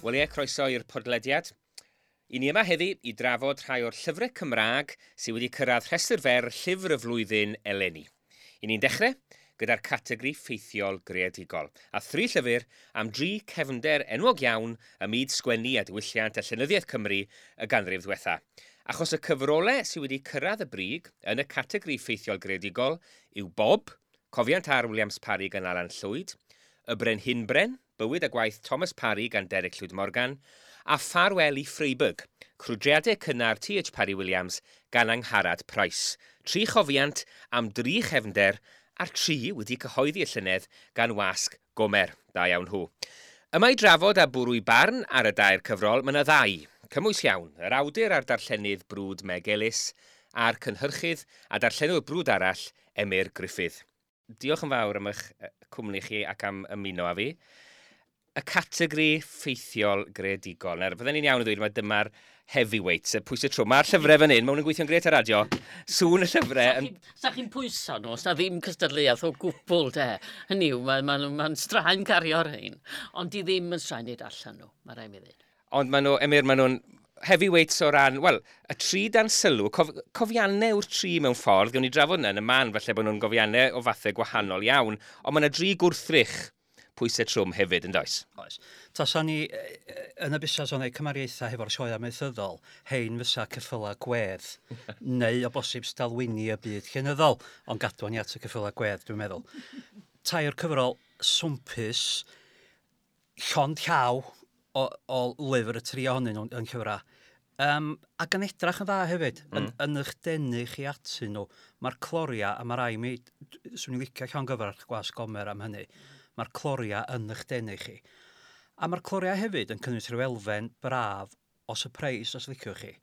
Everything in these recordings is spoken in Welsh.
Wel ie, croeso i'r podlediad. I ni yma heddi i drafod rhai o'r llyfrau Cymraeg sydd wedi cyrraedd rhestr fer llyfr y flwyddyn eleni. I ni'n dechrau gyda'r categori ffeithiol greadigol, a thri llyfr am dri cefnder enwog iawn ym myd sgwennu a diwylliant a llenyddiaeth Cymru y ganrif ddiwetha. Achos y cyfrolau sydd wedi cyrraedd y brig yn y categori ffeithiol greadigol yw Bob, Cofiant R Williams Parry gan Alan Llwyd, Y Brenhinbren, Bywyd a Gwaith Thomas Parry gan Derek Llwyd Morgan, a Ffarwel i Freiburg, Crwydriadau Cynnar T.H. Parry Williams gan Angharad Price. Tri chofiant am dri chefnder a'r tri wedi cyhoeddi y llynedd gan Wasg Gomer. Da iawn nhw. Yma i drafod a bwrw i barn ar y dair cyfrol, mae yna ddau. Cymwys iawn, yr awdur a'r darllenydd brwd Meg Ellis, a'r cynhyrchydd a darllenwr brwd arall, Emyr Griffith. Diolch yn fawr am eich cwmni chi ac am ymuno â fi. Y categori ffeithiol greadigol. Nawr, fydden ni'n iawn i ddweud mai dyma'r heavyweights, y pwysau trwm. Mae'r llyfrau fan hyn, maen nhw'n gweithio'n gret ar radio. Sŵn y llyfrau... Yn... Sa chi'n pwyso nhw, os na ddim cystadleuaeth o gwbl, de. Hynny yw, mae'n ma, ma, ma straen cario'r rhain, ond di ddim yn straen i darllen nhw, mae rhaid mi ddweud. Ond maen nhw, Emyr, maen nhw'n heavyweights o ran, wel, y tri dan sylw, cofiannau yw'r tri mewn ffordd, gawn ni drafod yna yn y man, falle bod nhw'n gofiannau o fathau gwahanol iawn, ond mae yna dri gwrthrych pwysau trwm hefyd, yn does? Oes. Tasa ni yn y busnes o'n ei cymariaethau hefo'r sioe amaethyddol, hein fysa ceffyla gwedd, neu o bosib stalwini y byd llenyddol, ond gadwa ni at y ceffyla gwedd, dwi'n meddwl. Tair cyfrol swmpus, llond llaw o lyfr y tri ohonyn nhw yn llyfrau. Ac yn edrach yn dda hefyd, yn eich denu chi atyn nhw. Mae'r cloria, a mae rai mi, swn i'n licio llongyfarch Gwasg Gomer am hynny, mae'r cloria yn eich denu chi. A mae'r cloria hefyd yn cynnwys rhyw elfen braf o surprise, os liciwch chi.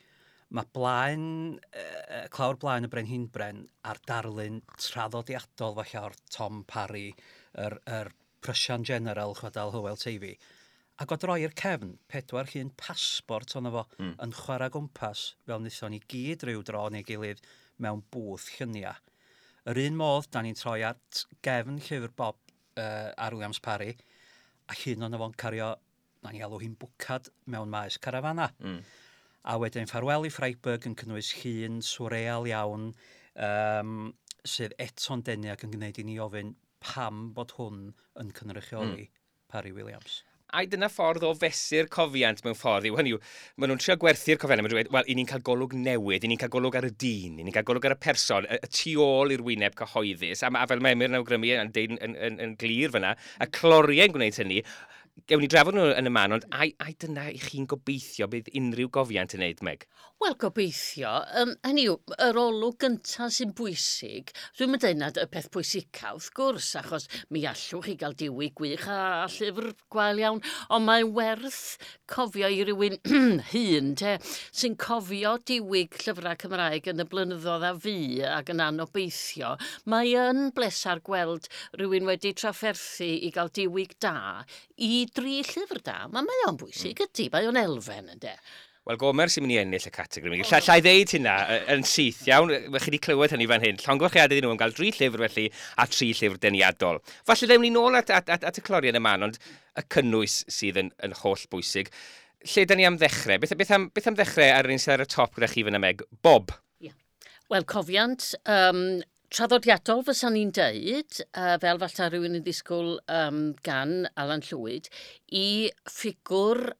Mae blaen, clawr blaen y Brenhinbren a'r darlun traddodiadol falle o'r Tom Parry, yr Prussian General, chwedl Hywel Teifi. Ac o droi'r cefn, pedwar llun pasbort ono fo yn chwarae gwmpas, fel wnaethon ni gyd ryw dro neu gilydd mewn bwth lluniau. Yr un modd, da ni'n troi at gefn llyfr Bob R. Williams Parry, a llun ono fo'n cario, na ni alw hi'n bwcad mewn maes carafana. A wedyn Ffarwel i Freiburg yn cynnwys llun swreal iawn, sydd eto'n denu ac yn gwneud i ni ofyn pam bod hwn yn cynrychioli Parry Williams. Ai dyna ffordd o fesur cofiant mewn ffordd yw, hynny yw, maen nhw'n trio gwerthu'r cofiannau, maen nhw'n dweud, wel, i ni'n cael golwg newydd, i ni'n cael golwg ar y dyn, i ni'n cael golwg ar y person, y tu ôl i'r wyneb cyhoeddus, a fel mae Emyr yn awgrymu yn deud yn glir fyna, y cloriau'n gwneud hynny, gewn ni drafod nhw yn y man, ond ai dyna i chi'n gobeithio bydd unrhyw gofiant yn neud, Meg? Wel, gobeithio. Hynny yw, yr olwg gyntaf sy'n bwysig, dwi'n mynd dweud nad y peth pwysica, wrth gwrs, achos mi allwch chi gael diwyg gwych a llyfr gwael iawn, ond mae'n werth cofio i rywun hŷn, te, sy'n cofio diwyg llyfrau Cymraeg yn y blynyddoedd a fu ac yn anobeithio. Mae yn bleser gweld rhywun wedi trafferthu i gael diwyg da i dri llyfr da. Mae o'n bwysig, ydy, mae o'n elfen, ynde. Wel, Gomer sy'n mynd i ennill y categori. Lla i ddeud hynna yn syth, iawn? Chi wedi clywed hynny fan hyn. Llongyfarchiadau iddyn nhw am gael 3 llyfr felly a 3 llyfr deniadol. Falle ddewn ni nôl at y cloriau yn y man, ond y cynnwys sydd yn holl bwysig. Lle da ni am ddechrau? Beth am ddechrau ar yr un sydd ar y top gyda chi fan y Meg? Bob? Yeah. Wel, cofiant traddodiadol fysa ni'n deud, fel falle rhywun yn ddisgwyl gan Alan Llwyd, i ffigwr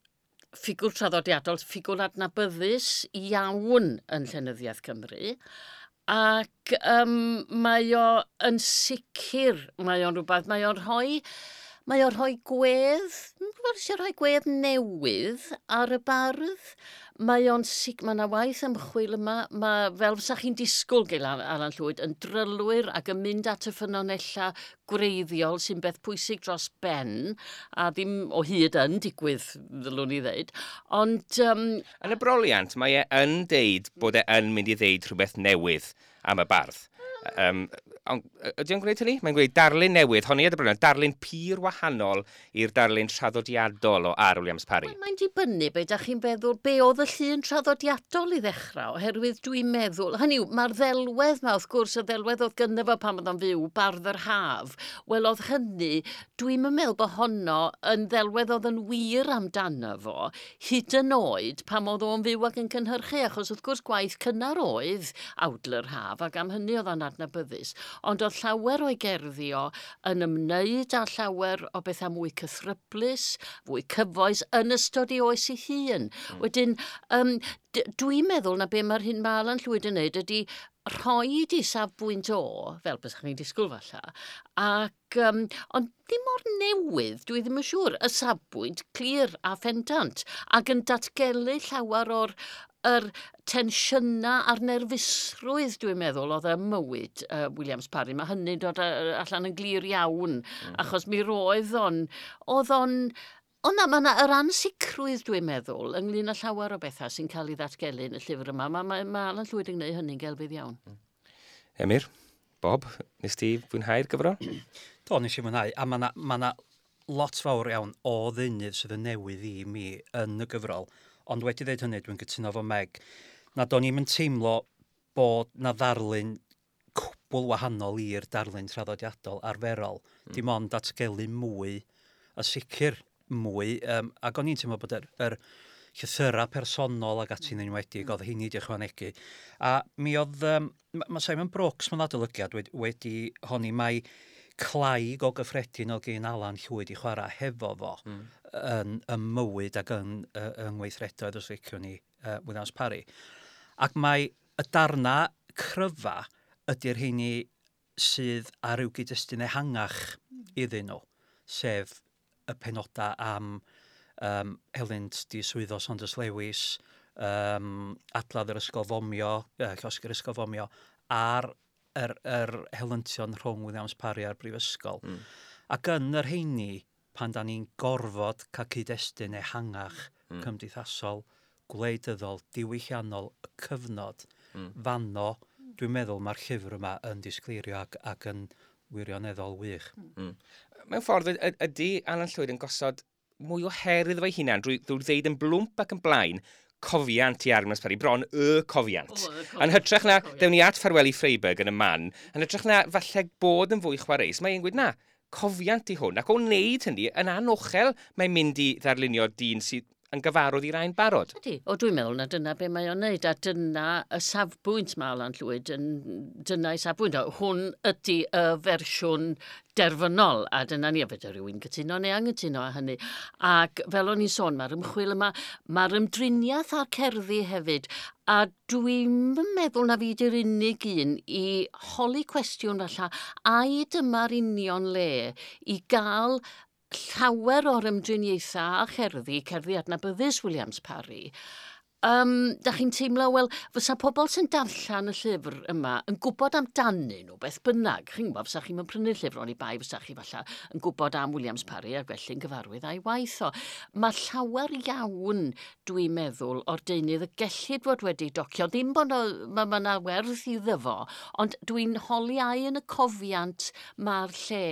traddodiadol, ffigwr adnabyddus iawn yn llenyddiaeth Cymru, ac mae o yn sicr, mae o'n rhywbeth, mae o'n rhoi gwedd, rhoi gwedd newydd ar y bardd. Mae o'n mae yna waith ymchwil yma, mae fel fysa chi'n disgwyl gael Alan Llwyd yn drylwyr ac yn mynd at y ffynonellau gwreiddiol sy'n beth pwysig dros ben, a ddim o hyd yn digwydd, ddylwn i ddeud. Ond yn y broliant, mae e yn deud bod e yn mynd i ddeud rhywbeth newydd am y bardd. Ond ydy o'n gwneud hynny? Mae'n gwneud darlun newydd, honni y broblem, darlun pur wahanol i'r darlun traddodiadol o R. Williams Parry. Wel, mae'n dibynnu be da chi'n feddwl, be oedd y llun traddodiadol i ddechrau, oherwydd dwi'n meddwl, hynny yw, mae'r ddelwedd ma, wrth gwrs, y ddelwedd oedd gynno fo pan oedd o'n fyw, Bardd yr Haf, wel oedd hynny, dwi'n meddwl bod honno yn ddelwedd oedd yn wir amdano fo, hyd yn oed pan oedd o'n fyw ac yn cynhyrchu, achos wrth gwrs gwaith cynnar oedd Awdl yr Haf, ac am hynny oedd o'n adnabyddus. Ond oedd llawer o'i gerddi o yn ymwneud â llawer o bethau mwy cythryblus, fwy cyfoes yn ystod ei oes ei hun. Wedyn, dwi'n meddwl na be mae'r hyn mae Alan Llwyd yn neud ydy rhoi i safbwynt o, fel bys chi'n disgwyl falle, ac, ond ddim mor newydd, dwi ddim yn siŵr, y safbwynt clir a phendant, ac yn datgelu llawer o'r yr tensiynau a'r nerfusrwydd, dwi'n meddwl, oedd ym mywyd Williams Parry. Mae hynny'n dod allan yn glir iawn, achos mi roedd o'n, oedd o'n, o na, mae yna yr ansicrwydd, dwi'n meddwl, ynglyn â llawer o bethau sy'n cael ei ddatgelu yn y llyfr yma. Mae Alan Llwyd yn gwneud hynny'n gelfydd iawn. Emyr, Bob, nes ti fwynhau'r gyfrol? Do, nes i fwynhau, a mae 'na lot fawr iawn o ddeunydd sydd yn newydd i mi yn y gyfrol. Ond wedi dweud hynny, dwi'n cytuno efo Meg, na do'n i'm yn teimlo bod na ddarlun cwbl wahanol i'r darlun traddodiadol arferol. Dim ond datgelu mwy, a sicr mwy, ac o'n i'n teimlo bod yr llythyrau personol ac ati'n enwedig, oedd hynny wedi ychwanegu. A mi oedd, ma Simon Brooks mewn adolygiad wedi honni mai clai go gyffredin oedd gen Alan Llwyd i chwarae hefo fo yn y mywyd ac yn yng ngweithredoedd, os liciwn ni, Williams Parry. Ac mae y darna cryfa ydy'r rheini sydd ar ryw gyd-destun ehangach iddyn nhw, sef y penodau am helynt diswyddo Saunders Lewis, adladd yr ysgol fomio, llosgi'r ysgol fomio, a'r yr helyntion rhwng Williams Parry a'r brifysgol. Ac yn yr rheini, pan da ni'n gorfod cael cyd-destun ehangach cymdeithasol, gwleidyddol, diwylliannol, y cyfnod, fanno, dwi'n meddwl mae'r llyfr yma yn disgleirio ac yn wirioneddol wych. Mewn ffordd, ydy Alan Llwyd yn gosod mwy o her iddo fe'i hunan drwy ddeud yn blwmp ac yn blaen cofiant i R. Williams Parry, bron y cofiant. O, y cofiant. Yn hytrach na, Cofiant. dewn ni at Ffarwel i Freiburg yn y man, yn hytrach na falle bod yn fwy chwareus, mae'n gweud na, cofiant i hwn, ac o wneud hynny, yn anochel, mae'n mynd i ddarlunio dyn sydd yn gyfarwydd i rai'n barod. Ydy, o dwi'n meddwl na dyna be mae o'n neud, a dyna y safbwynt mae Alan Llwyd, yn, dyna ei safbwynt. O, hwn ydy y fersiwn derfynol, a dyna ni, a fedra rhywun cytuno neu anghytuno â hynny. Ac fel o'n i'n sôn, mae'r ymchwil yma, mae'r ymdriniaeth a'r cerddi hefyd, a dwi'n meddwl na fi di'r unig un i holi cwestiwn falle, ai dyma'r union le i gael llawer o'r ymdriniaethau a cherddi, cerddi adnabyddus Williams Parry. Da chi'n teimlo, wel, fysa pobl sy'n darllen y llyfr yma yn gwybod amdanyn nhw beth bynnag. Chi'n gwybod, fysa chi'n prynu'r llyfr oni bai, fysa chi falle yn gwybod am Williams Parry ac felly'n gyfarwydd a'i waith o. Mae llawer iawn, dwi'n meddwl, o'r deunydd y gellid fod wedi docio. Ddim bod ma 'na werth iddo fo, ond dwi'n holi ai yn y cofiant mae'r lle.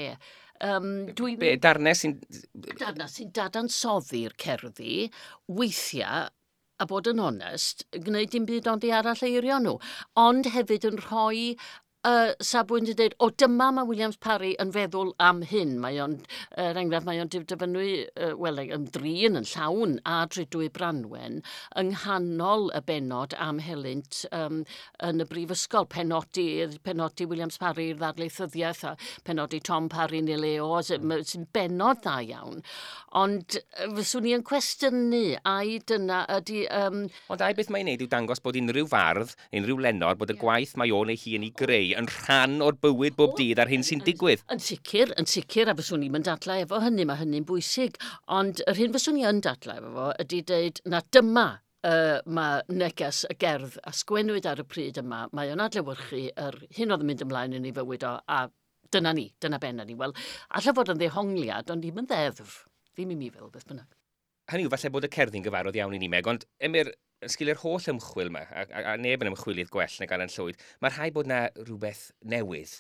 Be, darnau sy'n... Darnau sy'n dadansoddi'r cerddi, weithiau, a bod yn onest, gwneud dim byd ond i arall eirio nhw. Ond hefyd yn rhoi safbwynt yn dweud, o dyma mae Williams Parry yn feddwl am hyn. Mae o'n, er enghraifft, mae o'n dyfynnu, wel, ymdrin yn llawn a Drudwy Branwen yng nghanol y bennod am helynt yn y brifysgol. Penodi Williams Parry i'r ddarlithyddiaeth a penodi Tom Parry neu Leo, sy'n bennod dda iawn. Ond fyswn i yn cwestiynu, ai dyna ydy... Ond ai beth mae'n neud yw dangos bod unrhyw fardd, unrhyw lenor, bod y gwaith mae o'n ei hun i greu yn rhan o'r bywyd bob dydd a'r hyn sy'n digwydd. Yn sicr, a fyswn i'n dadlau efo hynny, mae hynny'n bwysig. Ond yr hyn fyswn i yn dadlau efo fo ydy dweud na dyma mae neges y gerdd a sgwennwyd ar y pryd yma, mae o'n adlewyrchu yr hyn oedd yn mynd ymlaen yn ei fywyd o, a dyna ni, dyna benna ni. Wel, alla fod yn ddehongliad, ond ddim yn ddeddf. Ddim i mi fel beth bynnag. Hynny yw, falle bod y cerddi'n gyfarwydd iawn i ni, Meg, ond Emyr, yn sgil yr holl ymchwil yma, a neb yn ymchwilydd gwell nag Alan Llwyd, mae rhaid bod na rhywbeth newydd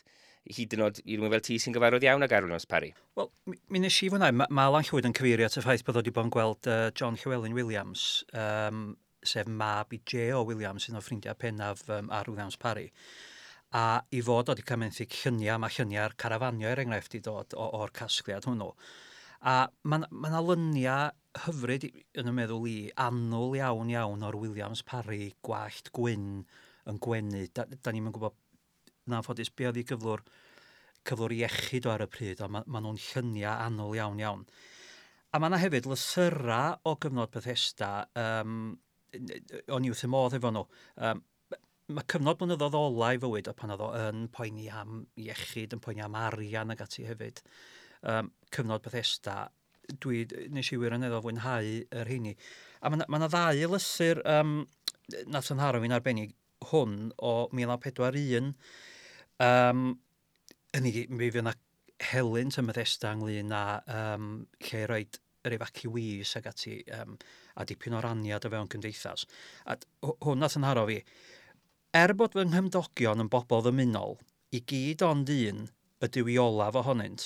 Hyd yn oed i rywun fel ti sy'n gyfarwydd iawn ag R Williams Parry. Wel, mi nes i fwynhau. Ma Alan Llwyd yn cyfeirio at y ffaith bod o wedi bod yn gweld John Llywelyn Williams, sef mab i J.O. Williams, un o ffrindiau pennaf R Williams Parry. A i fod o wedi cael menthyg lluniau, mae lluniau'r carafanio er enghraifft i dod o'r casgliad hwnnw. A mae yna lyniau hyfryd yn y meddwl i, annwl iawn iawn o'r Williams Parry, gwallt gwyn yn gwenu. Da ni'n gwybod yn anffodus be oedd ei gyflwr iechyd o ar y pryd, ond ma nhw'n lluniau annwl iawn iawn. A mae yna hefyd lythyrau o gyfnod Bethesda, o'n i wrth y modd efo nhw. Mae cyfnod blynyddoedd ola i fywyd o pan oedd o yn poeni am iechyd, yn poeni am arian ag ati hefyd. Cyfnod Bethesda, nes i wirioneddol fwynhau yr rheini. A mae yna ddau lythyr nath yn nharo fi'n arbennig, hwn o 1941. Hynny, mi fydd yna helynt ym Methesda ynglyn â lle roed yr evacuees ag ati, a dipyn o raniad o fewn cymdeithas. A hwn nath yn nharo fi. Er bod fy nghymdogion yn bobl ddymunol, i gyd ond un ydyw i olaf ohonynt,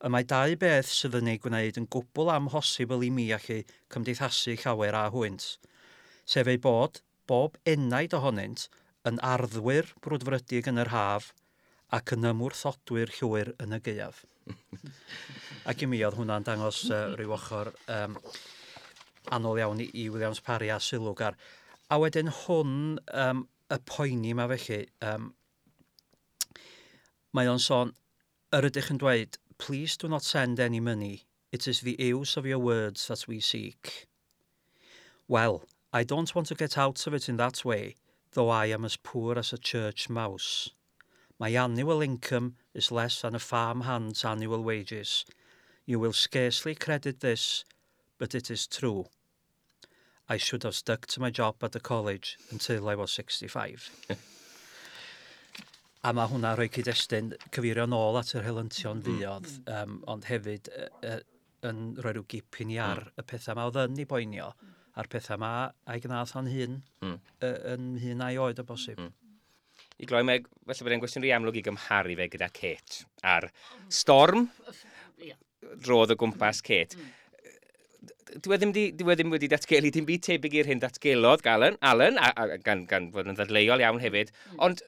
y mae dau beth sydd yn ei gwneud yn gwbl amhosibl i mi allu cymdeithasu llawer â hwynt, sef ei bod bob enaid ohonynt yn arddwyr brwdfrydig yn yr haf ac yn ymwrthodwyr llwyr yn y gaeaf. Ac i mi oedd hwnna'n dangos rhyw ochr annwl iawn i Williams Parry a sylwgar. A wedyn hwn, y poeni yma felly, mae o'n sôn, yr ydych yn dweud, "Please do not send any money. It is the use of your words that we seek. Well, I don't want to get out of it in that way, though I am as poor as a church mouse. My annual income is less than a farm hand's annual wages. You will scarcely credit this, but it is true. I should have stuck to my job at the college until I was 65." A mae hwnna rhoi cyd-destun cyfeirio nôl at yr helyntion fuodd, ond hefyd yn rhoi rhyw gip i ni ar y pethau ma oedd yn ei boenio, a'r pethau ma a'i gnath o'n hun, yn hun a'i oed o bosib. I gloi, mae, falle bod e'n gwestiwn rhy amlwg i gymharu fe gyda Kate. A'r storm drodd o gwmpas Kate. Dwi e ddim wedi datgelu dim byd tebyg i'r hyn datgelodd Alan, a gan fod yn ddadleuol iawn hefyd, ond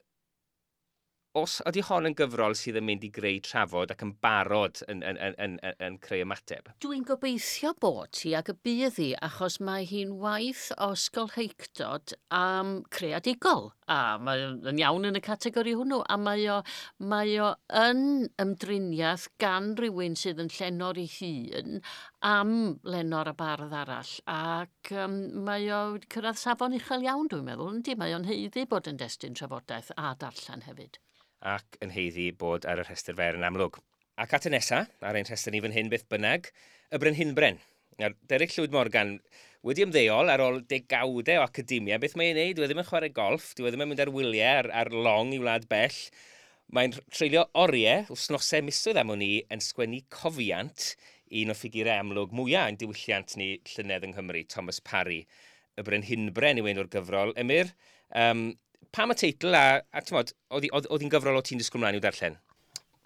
os ydy hon yn gyfrol sydd yn mynd i greu trafod ac yn barod yn creu ymateb? Dwi'n gobeithio bod hi ac y bydd hi, achos mae hi'n waith o ysgolheictod am creadigol. A mae yn iawn yn y categori hwnnw. A mae o yn ymdriniaeth gan rywun sydd yn llenor ei hun am lenor a bardd arall. Ac mae o wedi cyrraedd safon uchel iawn, dwi'n meddwl. Yndi, mae o'n haeddu bod yn destun trafodaeth a darllen hefyd. Ac yn haeddu bod ar y rhestr fer yn amlwg. Ac at y nesa, ar ein rhestr ni fan hyn beth bynnag, y Brenhinbren. Nawr, Derek Llwyd Morgan wedi ymddeol ar ôl degawdau o academia. Beth mae'n ei wneud? Dwi e ddim yn chwarae golff, dwi e ddim yn mynd ar wyliau ar long i wlad bell. Mae'n treulio oriau, wythnosau, misoedd am wn i, yn sgwennu cofiant un o ffigurau amlwg mwyaf yn diwylliant ni llynedd yng Nghymru, Thomas Parry. Y Brenhinbren yw enw'r gyfrol. Emyr, pam y teitl a t'mod, oedd hi'n gyfrol o ti'n disgwyl mlaen i'w darllen?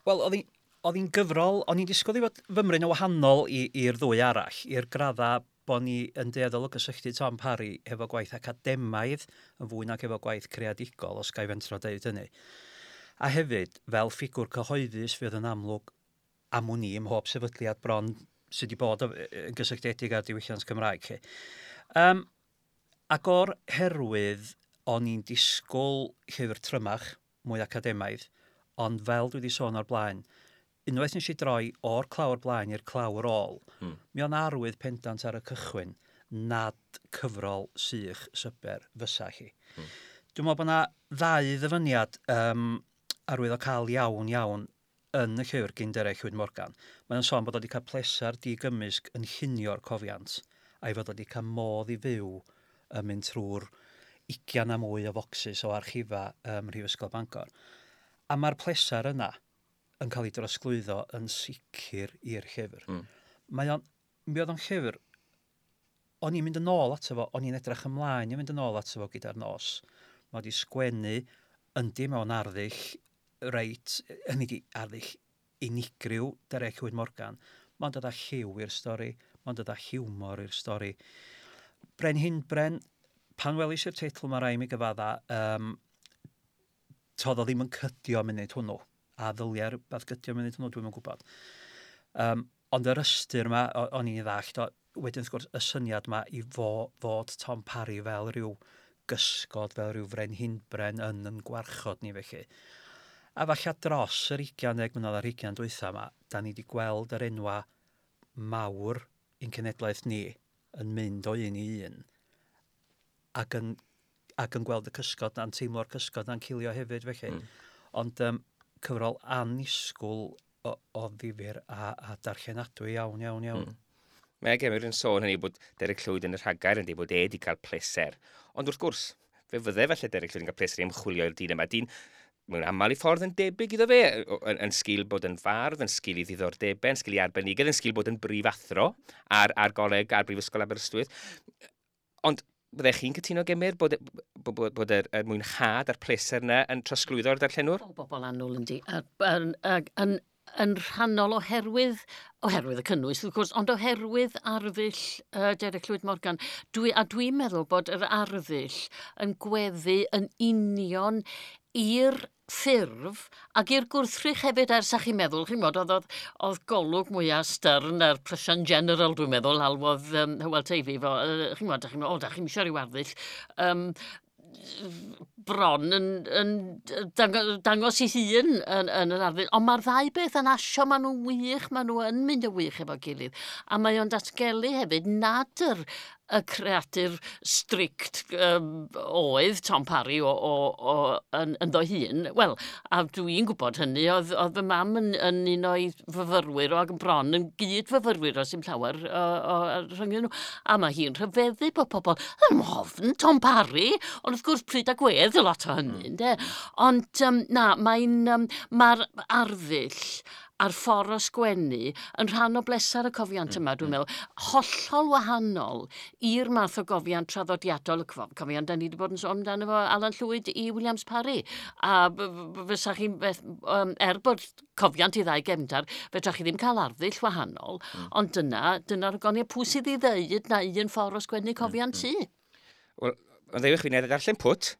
Wel, oedd hi'n gyfrol, o'n i'n disgwyl i fod fymryn yn wahanol i'r ddwy arall, i'r gradda bod ni yn dueddol o gysylltu Tom Parry efo gwaith academaidd yn fwy nag efo gwaith creadigol, os ga i fentro deud hynny. A hefyd, fel ffigwr cyhoeddus fydd yn amlwg am wn i ym mhob sefydliad bron sydd wedi bod yn gysylltiedig â'r diwylliant Cymraeg. Chi. Ac o'r herwydd, o'n i'n disgwyl llyfr trymach, mwy academaidd, ond fel dwi wedi sôn o'r blaen, unwaith nes i droi o'r clawr blaen i'r clawr ôl, mi o'n arwydd pendant ar y cychwyn nad cyfrol sych syber fysa hi. Dwi'n meddwl bod yna ddau ddyfyniad arwyddocaol iawn iawn yn y llyfr gyn Derek Llwyd Morgan. Mae'n sôn bod o wedi cael pleser digymysg yn llunio'r cofiant, a'i fod o wedi cael modd i fyw yn mynd trwy'r 20 a mwy o focsys o archifa ym Mhrifysgol Bangor. A mae'r pleser yna yn cael ei drosglwyddo yn sicr i'r llyfr. Mi oedd o'n llyfr, o'n i'n mynd yn ôl ato fo, o'n i'n edrych ymlaen i fynd yn ôl ato fo gyda'r nos. Mae wedi sgwennu yndi mewn arddull reit, hynny di arddull unigryw Derek Llwyd Morgan. Mae'n dod â lliw i'r stori, mae'n dod â hiwmor i'r stori. Brenhinbren, pan welis i'r teitl mae rai mi gyfadda, toedd o ddim yn cydio munud hwnnw. A ddylia rhywbeth gydio munud hwnnw, dwi'm yn gwybod. Ond yr ystyr yma, o'n i'n ddallt, wedyn wrth gwrs, y syniad yma i fod Tom Parry fel rhyw gysgod, fel rhyw frenhinbren yn gwarchod ni felly. A falle dros yr 20 mlynedd a'r 20 dwytha yma, da ni wedi gweld yr enwa mawr i'n cenedlaeth ni yn mynd o un i un ac yn gweld y cysgod na'n teimlo'r cysgod na'n cilio hefyd felly. Ond cyfrol annisgwyl o ddifyr a darllenadwy iawn, iawn, iawn. Mae Gemyr yn sôn hynny bod Derek Llwyd yn y rhagair yn dweud bod e wedi cael pleser. Ond wrth gwrs, fe fydde falle Derek Llwyd yn cael pleser i ymchwilio i'r dyn yma. Dyn mewn aml i ffordd yn debyg iddo fe, yn sgil bod yn fardd, yn sgil i ddiddordebau, yn sgil i arbenigedd, yn sgil bod yn brifathro ar goleg, ar Brifysgol Aberystwyth. Ond byddech chi'n cytuno, Gemyr, bod yr mwynhad a'r pleser yna yn trosglwyddo'r darllenwr? O, bobl annwyl yndi. Yn rhannol oherwydd y cynnwys, wrth gwrs, ond oherwydd arddull Derek Llwyd Morgan. Dwi'n meddwl bod yr arddull yn gweddu yn union i'r ffurf ac i'r gwrthrych hefyd, ers â chi'n meddwl, chi'n gwybod, oedd golwg mwyaf stern ar Prussian General, dwi'n meddwl, alwodd Hywel Teifi, fo, chi'n gwybod, da chi'n meddwl, da chi'n eisiau rhyw arddull, bron yn dangos ei hun yn yr arddull. Ond mae'r ddau beth yn asio, maen nhw'n wych, maen nhw yn mynd yn wych efo gilydd. A mae o'n datgelu hefyd nad y creadur strict oedd Tom Parry ynddo hun. Wel, a dwi'n gwybod hynny, oedd fy mam yn un o'i fyfyrwyr o ac yn bron yn gyd fyfyrwyr o sy'n llawer rhwng nhw. A mae hi'n rhyfeddu bod pobl yn ofn Tom Parry, ond wrth gwrs pryd a gwedd y lot o hynny, ynde? Ond na, mae'r arddull a'r ffordd o sgwennu yn rhan o bleser y cofiant yma, dwi'n meddwl, hollol wahanol i'r math o gofiant traddodiadol, y cofiant da ni wedi bod yn sôn amdano fo Alan Llwyd i Williams Parry. A fysa chi'n beth, bod cofiant i ddau gefndar, fedrwch chi ddim cael arddull wahanol, ond dyna'r goniau pwy sydd i ddeud na un ffordd o sgwennu cofiant ti. Wel, ond ddewch fi wneud darllen pwt,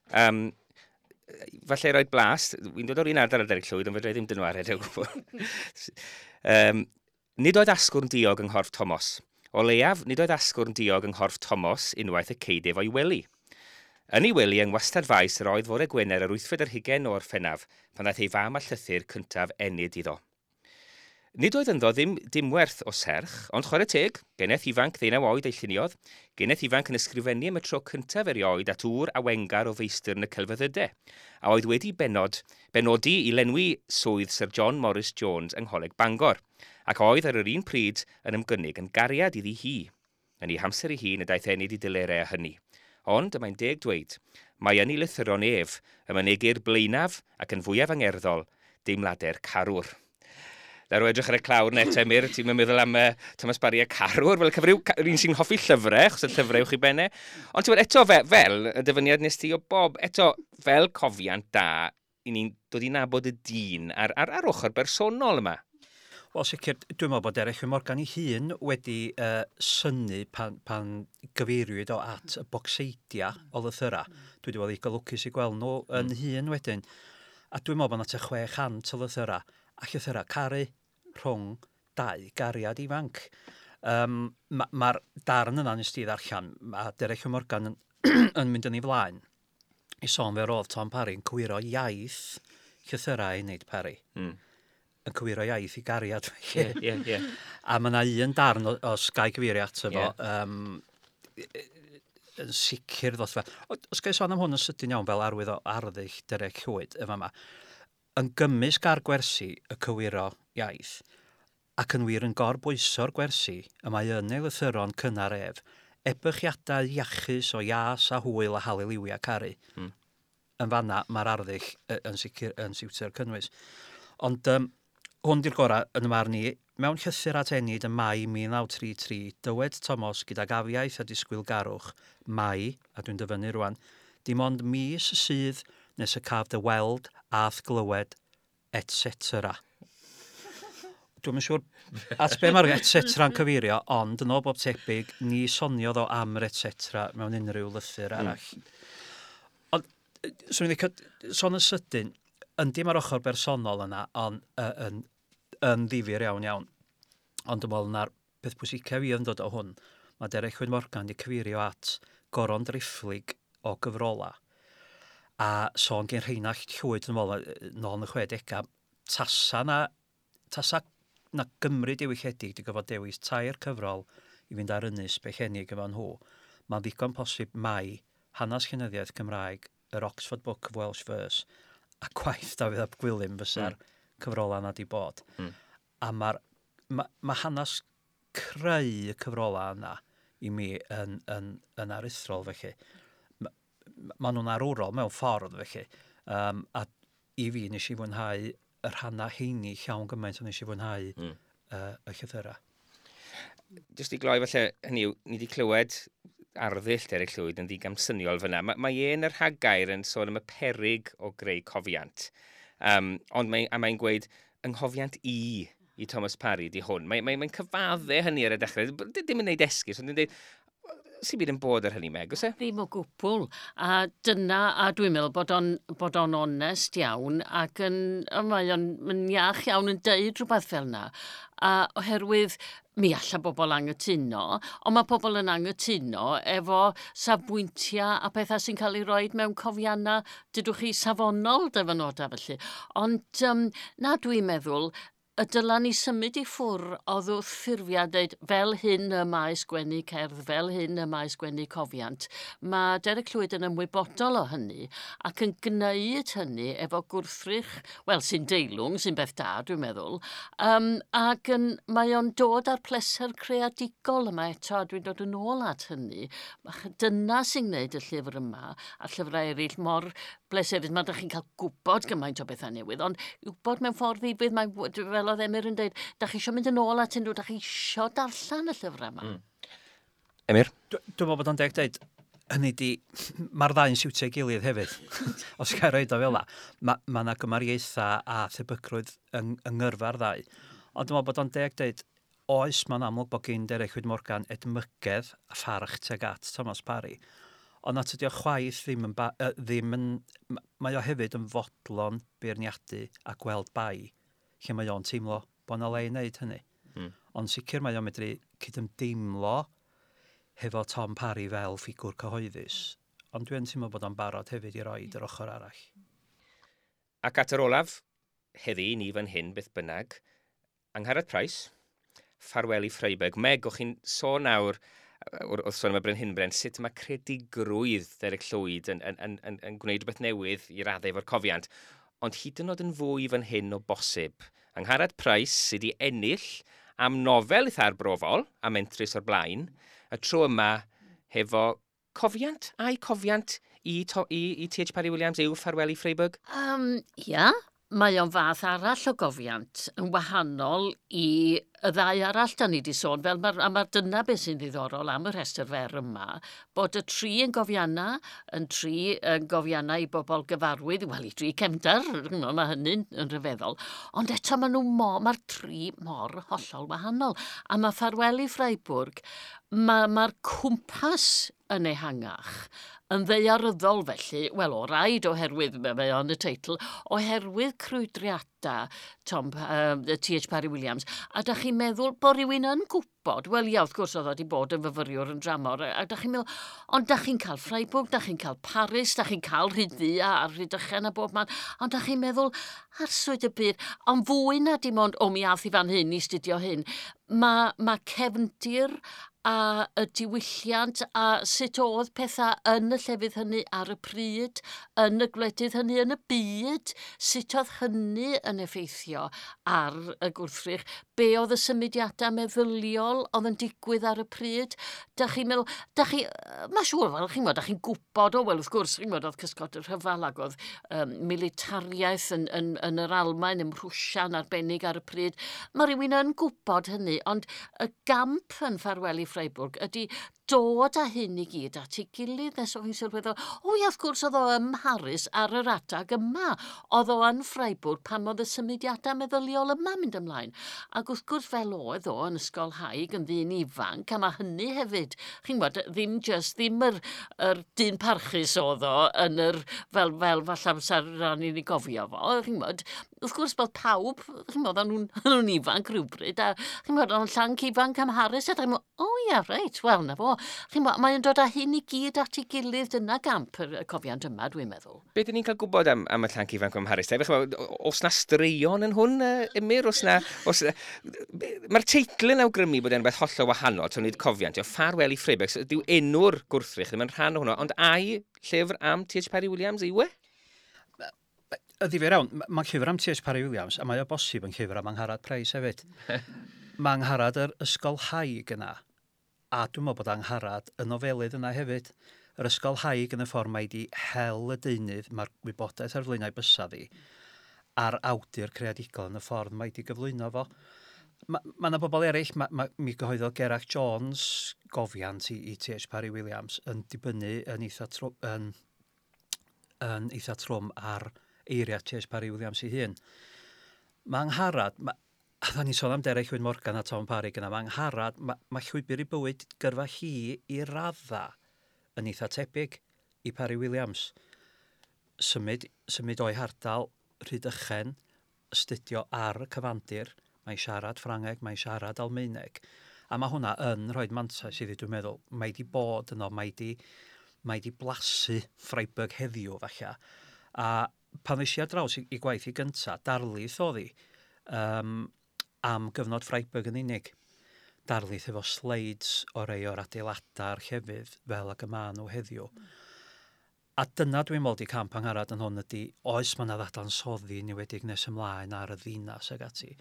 falle roi blas, fi'n dod o'r un ardal ar Derek Llwyd, ond fedra i ddim dynwared o gwbl. Nid oedd asgwrn diog yng nghorff Tomos. O leiaf, nid oedd asgwrn diog yng nghorff Tomos unwaith y ceidef o'i wely. Yn ei wely yng ngwastad faes yr oedd fore Gwener yr 28 o Orffennaf, pan ddaeth ei fam a llythyr cyntaf Enid iddo. Nid oedd ynddo ddim dim werth o serch, ond chwarae teg, geneth ifanc 19 oed ei lluniodd, geneth ifanc yn ysgrifennu am y tro cyntaf erioed at ŵr awengar o feistr yn y celfyddydau, a oedd wedi benodi i lenwi swydd Sir John Morris Jones yng Ngholeg Bangor, ac oedd ar yr un pryd yn ymgynnig yn gariad iddi hi. Yn ei hamser ei hun y daeth Enid i delerau â hynny. Ond, y mae'n deg dweud, mae yn ei lythyron ef, y mynegir blaenaf ac yn fwyaf angerddol, deimladau'r carwr. Ddaru edrych ar y clawr net, Emyr, ti'n meddwl am Thomas Parry a carwr, fel cyfryw, un sy'n hoffi llyfrau, achos y llyfrau uwch i benne. Ond ti'n eto fel y dyfyniad nes ti o Bob, eto fel cofiant da, i ni'n dod i nabod y dyn ar ochr bersonol yma. Wel, sicr, dwi'n meddwl bod Derek Morgan ei hun wedi synnu pan gyfeiriwyd o at y bocseidia o lythyra. Dwi wedi bod i lwcus i gweld nhw yn hun wedyn. A dwi'n meddwl bod 'na tua 600 o lythyra, a llythyra caru rhwng dau gariad ifanc. Mae'r darn yna nes ti ddarllen, a Derek Morgan yn mynd yn ei flaen i sôn fe roedd Tom Parry yn cywiro iaith llythyrau Enid Parry. Yn cywiro iaith i gariad. Yeah. A mae yna un darn o Sky cyfeirio ato fo, yn sicr ddoth fe. Os gael sôn am hwn yn sydyn iawn fel arwydd o arddull Derek Llwyd, efo yma, yn gymysg ar gwersi y cywiro iaith, ac yn wir yn gorbwyso'r gwersi y mae yn ei lythyron cynnar ef, ebychiadau iachus o ias a hwyl a haleliwia caru. Yn fanna mae'r arddull yn sicr yn siwtio'r cynnwys. Ond hwn di'r gorau yn y marn i. Mewn llythyr at Enid ym Mai 1933, dywed Tomos gydag afiaeth a disgwylgarwch, mai, a dwi'n dyfynnu rwan, dim ond mis sydd nes y caf dy weld a'th glywed etc. Dwi'm yn siŵr at be mae'r etc yn cyfeirio, ond yn ôl bob tebyg, ni soniodd o am yr etc mewn unrhyw lythyr arall. Ond, swn i'n licio sôn yn sydyn, yndi mae'r ochr bersonol yna, ond yn ddifyr iawn iawn. Ond dwi'n meddwl na'r peth pwysica fi yn dod o hwn, mae Derek Llwyd Morgan wedi cyfeirio at goron driphlyg o gyfrola. A sôn gen Rheinallt Llwyd yn ôl, nôl yn y 60au, tasa na Gymru diwylliedig di gyfod dewis 3 cyfrol i fynd ar ynys Bellenig efo nhw, mae'n ddigon posib mai hanes llenyddiaeth Cymraeg, yr Oxford Book of Welsh Verse, a gwaith Dafydd ap Gwilym fysa'r cyfrola yna di bod. A ma hanes creu y cyfrola yna i mi yn aruthrol felly. Ma nhw'n arwrol mewn ffordd felly. A i fi nes i fwynhau y rhannau heini llawn gymaint o'n nes i fwynhau y llythyrau. Jyst i gloi falle, hynny yw, ni wedi clywed arddull Derek Llwyd yn ddigamsyniol fyna. Mae e'n yr rhagair yn sôn am y peryg o greu cofiant. Ond mae'n gweud, ynghofiant i Thomas Parry di hwn. Mae'n cyfadde hynny ar y dechrau. Dim yn neud esgus, ond yn dweud, sy'n byd yn bod ar hynny, Meg, oes e? Ddim o gwbl. A dyna, a dwi'n meddwl bod o'n onest iawn ac mae o'n iach iawn yn deud rhywbeth fel yna. A oherwydd mi alla bobl anghytuno, ond mae pobl yn anghytuno efo safbwyntiau a pethau sy'n cael ei roed mewn cofiannau, dydwch chi, safonol dyfynodau felly. Ond na, dwi'n meddwl, y dyla ni symud i ffwr oedd wrth ffurfiau dweud fel hyn y mae sgwennu cerdd, fel hyn y mae sgwennu cofiant. Mae Derek Llwyd yn ymwybodol o hynny ac yn gwneud hynny efo gwrthrych, wel, sy'n deilwng, sy'n beth da, dwi'n meddwl, ac mae o'n dod â'r pleser creadigol yma eto, a dwi'n dod yn ôl at hynny. Dyna sy'n gwneud y llyfr yma a llyfrau eraill mor bleserus. Mae ydych chi'n cael gwybod gymaint o bethau newydd, ond gwybod mewn ffordd ddifyr, mae fel oedd Emyr yn dweud, da chi eisiau mynd yn ôl at unrhyw, da chi eisiau darllen y llyfrau yma. Emyr? Dwi'n meddwl bod o'n deg dweud, hynny di, mae'r ddau'n siwtio ei gilydd hefyd, os gael roed o fel la. Ma 'na gymariaethau a thebygrwydd yng ngyrfa'r ddau. Ond dwi'n meddwl bod o'n deg dweud, oes, mae'n amlwg bod gen Derek Llwyd Morgan edmygedd a pharch tuag at Thomas Parry. Ond na tydi o chwaith ddim yn, ddim yn, mae o hefyd yn fodlon beirniadu a gweld bai, lle mae o'n teimlo bod 'na le i wneud hynny. Ond sicr mae o'n medru cydymdeimlo hefo Tom Parry fel ffigwr cyhoeddus. Ond dwi'n teimlo bod o'n barod hefyd i roed yr ochr arall. Ac at yr olaf, heddi ni fan hyn beth bynnag, Angharad Price, Ffarwel i Ffreiburg. Meg, o'ch chi'n sôn nawr, wrth sôn am y Brenhinbren, sut mae credigrwydd Derek Llwyd yn gwneud rhywbeth newydd i raddau efo'r cofiant. Ond hyd yn oed yn fwy fan hyn o bosib. Angharad Price sydd wedi ennill am nofel eitha arbrofol a mentrus o'r blaen, y tro yma hefo cofiant, a'i cofiant i T.H. Parry Williams yw Ffarwel i Ffreiburg? Ia, mae o'n fath arall o gofiant yn wahanol i y ddau arall da ni wedi sôn, fel a mae'r dyna beth sy'n ddiddorol am y rhestr fer yma, bod y tri yn gofianna, yn tri yn gofianna i bobl gyfarwydd, wel i dri cefndar, mae hynny'n yn rhyfeddol, ond eto mae'r tri mor hollol wahanol. A mae Ffarwel i Ffreiburg, mae'r cwmpas yn ehangach, yn ddaearyddol felly, wel o raid oherwydd, mae o'n y teitl, oherwydd crwydriadau T.H. Parry Williams, a da chi'n meddwl bod rhywun yn gwybod, wel ia, wrth gwrs oedd o wedi bod yn fyfyriwr yn dramor, a da chi'n meddwl, ond da chi'n cael Freiburg, da chi'n cael Paris, da chi'n cael Rhyd-ddu a Rhydychen a bob man, ond da chi'n meddwl, arswyd y byd, ond fwy na dim ond, o mi ath i fan hyn i studio hyn, mae cefndir a y diwylliant a sut oedd pethau yn y llefydd hynny ar y pryd, yn y gwledydd hynny, yn y byd, sut oedd hynny yn effeithio ar y gwrthrych, be oedd y symudiadau meddyliol oedd yn digwydd ar y pryd. Da chi'n meddwl, da chi, mae siŵr fel chi'n gwybod, da chi'n gwybod, o wel wrth gwrs, chi'n gwybod, oedd cysgod y rhyfel ac oedd militariaeth yn yr Almaen, ym Mhrwsia'n arbennig ar y pryd. Mae rhywun yn gwybod hynny, ond y gamp yn Ffarwel i Ffreiburg ydy dod â hyn i gyd at ei gilydd nes o'ch chi'n sylweddol, o ia, wrth gwrs oedd o ym Mharis ar yr adag yma. Oedd o yn Freiburg pan oedd y symudiadau meddyliol yma mynd ymlaen. Ac wrth gwrs fel oedd o yn ysgolhaig yn ddyn ifanc, a mae hynny hefyd, chi'n gwybod, ddim just, ddim yr dyn parchus oedd o yn yr, fel falle amser ran i ni gofio fo, chi'n gwybod, wrth gwrs bod pawb, chi'n gwybod, o'n nhw'n ifanc rhywbryd, a chi'n gwybod, o'n llanc ifanc am Harris, a chi'n gwybod, o ia, reit, wel, na fo. Chi'n gwybod, mae'n dod â hyn i gyd at ei gilydd, dyna gamp y cofiant yma, dwi'n meddwl. Be dyn ni'n cael gwybod am y llanc ifanc am Harris? Oes na straeon yn hwn, Emyr? Oes na... Mae'r teitl yn awgrymu bod e'n beth hollol wahanol, to nid cofiant. Ffarwel i Freiburg, dyw enw'r gwrthrych ddim yn rhan o hwnnw, ond ai llyfr am T.H. Parry Williams yw e? Y ddifyr iawn, mae'n llyfr am T.H. Parry Williams, a mae o bosib yn llyfr am Angharad Price hefyd. Mae Angharad yr ysgolhaig yna, a dwi'n meddwl bod Angharad y nofelydd yna hefyd. Yr ysgolhaig yn y ffordd mae di hel y deunydd, mae'r wybodaeth ar flaenau bysadd hi, a'r awdur creadigol yn y ffordd mae di gyflwyno fo. Mae yna bobl eraill, mi gyhoeddodd Gerallt Jones gofiant i T.H. Parry Williams yn dibynnu yn eitha trwm ar eiriau T.H. Parry Williams ei hun. Mae Angharad, a dda ni'n sôn am Derek Llwyd Morgan a Tom Parry gyna, mae Angharad, mae llwybr i bywyd gyrfa hi i radda yn eitha tebyg i Parry Williams. Symud o'i hardal Rhydychen, astudio ar y cyfandir, mae'n siarad Ffrangeg, mae'n siarad Almaeneg. A mae hwnna yn rhoi mantais iddi, dwi'n meddwl. Mae di bod yno, mae di blasu Freiburg heddiw, falle. A pan ddes i ar draws i gwaith i gynta, darlith oedd hi am gyfnod Freiburg yn unig. Darlith efo slides o rei o'r adeiladau'r llefydd fel ag y maen nhw heddiw. A dyna dwi'n meddwl di camp Angharad yn hwn ydy, oes mae yna ddadansoddi niwedig nes ymlaen ar y ddinas ag ati.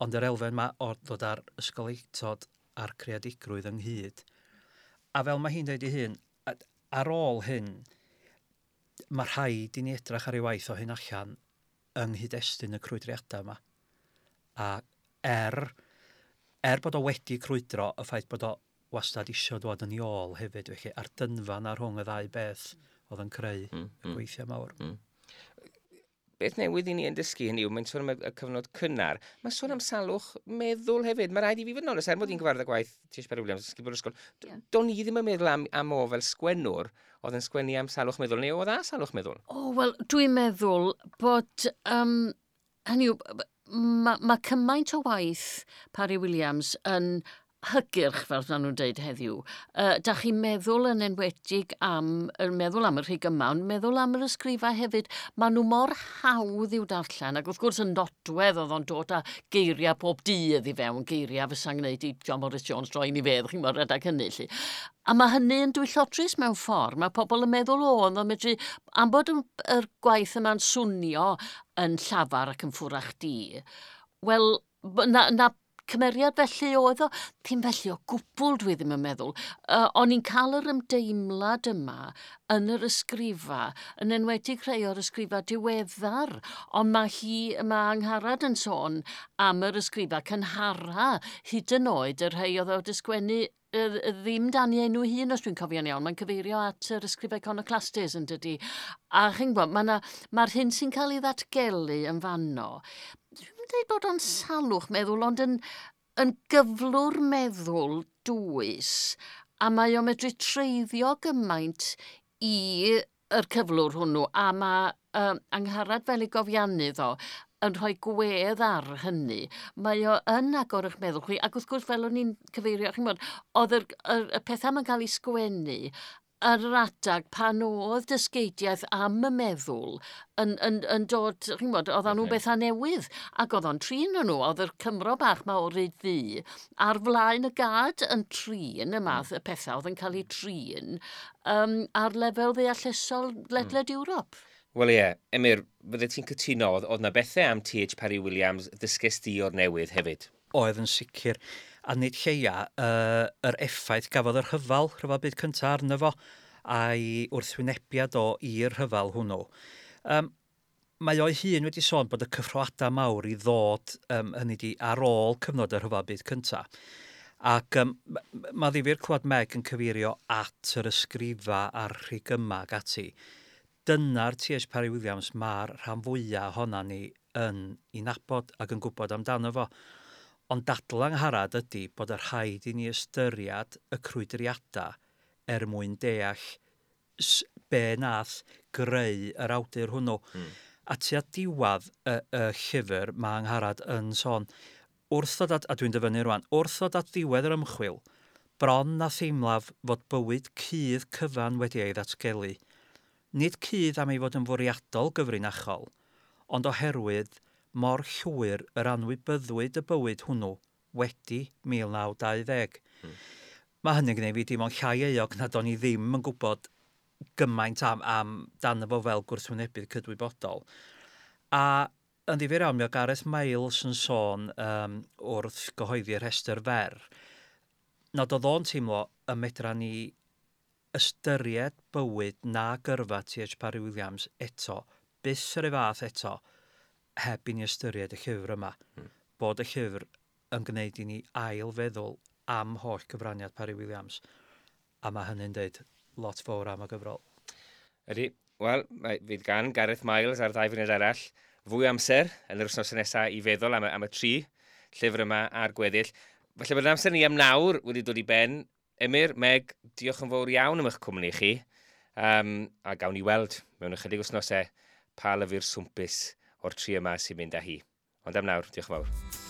Ond yr elfen ma o ddod ar ysgolheictod a'r creadigrwydd ynghyd. A fel mae hi'n dweud ei hun, ar ôl hyn, mae rhaid i ni edrych ar ei waith o hyn allan yng nghyd-destun y crwydriadau yma. A er bod o wedi crwydro, y ffaith bod o wastad isio dod yn ei ôl hefyd, felly, a'r dynfa na rhwng y ddau beth oedd yn creu y gweithiau mawr. Beth newydd i ni yn dysgu hynny yw, mae'n sôn am y cyfnod cynnar. Mae'n sôn am salwch meddwl hefyd. Mae rhaid i fi fod yn onest, er mod i'n gyfarwydd â gwaith T.H. Parry Williams, ysgol o'r ysgol, do'n i ddim yn meddwl am o fel sgwennwr oedd yn sgwennu am salwch meddwl, neu oedd a salwch meddwl? O, wel, dwi'n meddwl bod, hynny yw, mae cymaint o waith Parry Williams yn hygyrch, fel maen nhw'n dweud heddiw. Da chi'n meddwl yn enwedig am, meddwl am y rhig yma, ond meddwl am yr ysgrifau hefyd, maen nhw mor hawdd i'w darllen, ac wrth gwrs yn nodwedd oedd o'n dod â geiriau pob dydd i fewn, geiriau fysa'n gwneud i John Morris Jones droi ni fedd, chi'n gwybod, rhedeg hynny, lly. A mae hynny yn dwyllodrus mewn ffordd. Mae pobl yn meddwl o, ond o'n medru, am bod yr gwaith yma'n swnio yn llafar ac yn ffwrach di, wel, na cymeriad felly oedd o, ddim felly o gwbl dwi ddim yn meddwl. O'n i'n cael yr ymdeimlad yma yn yr ysgrifa, yn enwedig rhai o'r ysgrifa diweddar, ond mae Angharad yn sôn am yr ysgrifa cynhara, hyd yn oed y rhai oedd o wedi sgwennu ddim dan ei enw hun, os dwi'n cofio'n iawn, mae'n cyfeirio at yr ysgrifau Iconoclastes yn dydi. A chi'n gwybod, mae'r hyn sy'n cael ei ddatgelu yn fanno. Dwi'n dweud bod o'n salwch meddwl, ond yn gyflwr meddwl dwys, a mae o'n medru treiddio gymaint i yr cyflwr hwnnw, a mae Angharad fel ei gofiannydd o yn rhoi gwedd ar hynny. Mae o yn agor eich meddwl chi, ac wrth gwrs fel o'n i'n cyfeirio, chi'n gwybod, oedd y pethau ma'n cael ei sgwennu ar yr adag pan oedd dysgeidiaeth am y meddwl yn dod, chi'n gwybod, oedd nhw'n bethau newydd, ac oedd o'n trin nhw, oedd yr Cymro bach ma o Ryd Ddu ar flaen y gad yn trin y math y pethau oedd yn cael eu trin ar lefel ddeallusol ledled Ewrop. Wel ie, Emyr, fydde ti'n cytuno, oedd na bethau am T.H. Parry Williams ddysges di o'r newydd hefyd? Oedd yn sicr, a nid lleia, yr effaith gafodd yr rhyfel byd cyntaf arno fo, a'i wrthwynebiad o i'r rhyfel hwnnw. Mae o'i hun wedi sôn bod y cyffroadau mawr i ddod, hynny di, ar ôl cyfnod y rhyfel byd cyntaf. Ac mae ddifyr clywed Meg yn cyfeirio at yr ysgrifa a'r rhigyma ac ati. Dyna'r T.H. Parry Williams mae'r rhan fwyaf ohona ni yn ei nabod ac yn gwybod amdano fo. Ond dadl Angharad ydy bod y rhaid i ni ystyried y crwydriadau er mwyn deall be nath greu yr awdur hwnnw. A tua diwedd y llyfr mae Angharad yn sôn, wrth ddod at, a dwi'n dyfynnu rwan, wrth ddod at ddiwedd yr ymchwil, bron na theimlaf fod bywyd cudd cyfan wedi ei ddatgelu. Nid cudd am ei fod yn fwriadol gyfrinachol, ond oherwydd mor llwyr yr anwybyddwyd y bywyd hwnnw wedi 1920. Mae hynny'n gwneud fi dim ond llai euog nad o'n i ddim yn gwybod gymaint am dan fo fel gwrthwynebydd cydwybodol. A yn ddifyr iawn, mi o Gareth Miles yn sôn wrth gyhoeddi'r rhestr fer, nad oedd o'n teimlo y medra ni ystyried bywyd na gyrfa T.H. Parry Williams eto, byth yr ei fath eto, heb i ni ystyried y llyfr yma. Bod y llyfr yn gwneud i ni ail feddwl am holl gyfraniad Parry Williams. A mae hynny'n deud lot fawr am y gyfrol. Ydy, wel, fydd gan Gareth Miles a'r ddau funud arall fwy amser yn yr wythnos nesaf i feddwl am y tri llyfr yma a'r gweddill. Felly bod amser ni am nawr wedi dod i ben. Emyr, Meg, diolch yn fawr iawn am eich cwmni chi. A gawn ni weld mewn ychydig wythnosau pa lyfr swmpus o'r tri yma sy'n mynd â hi. Ond am nawr, diolch yn fawr.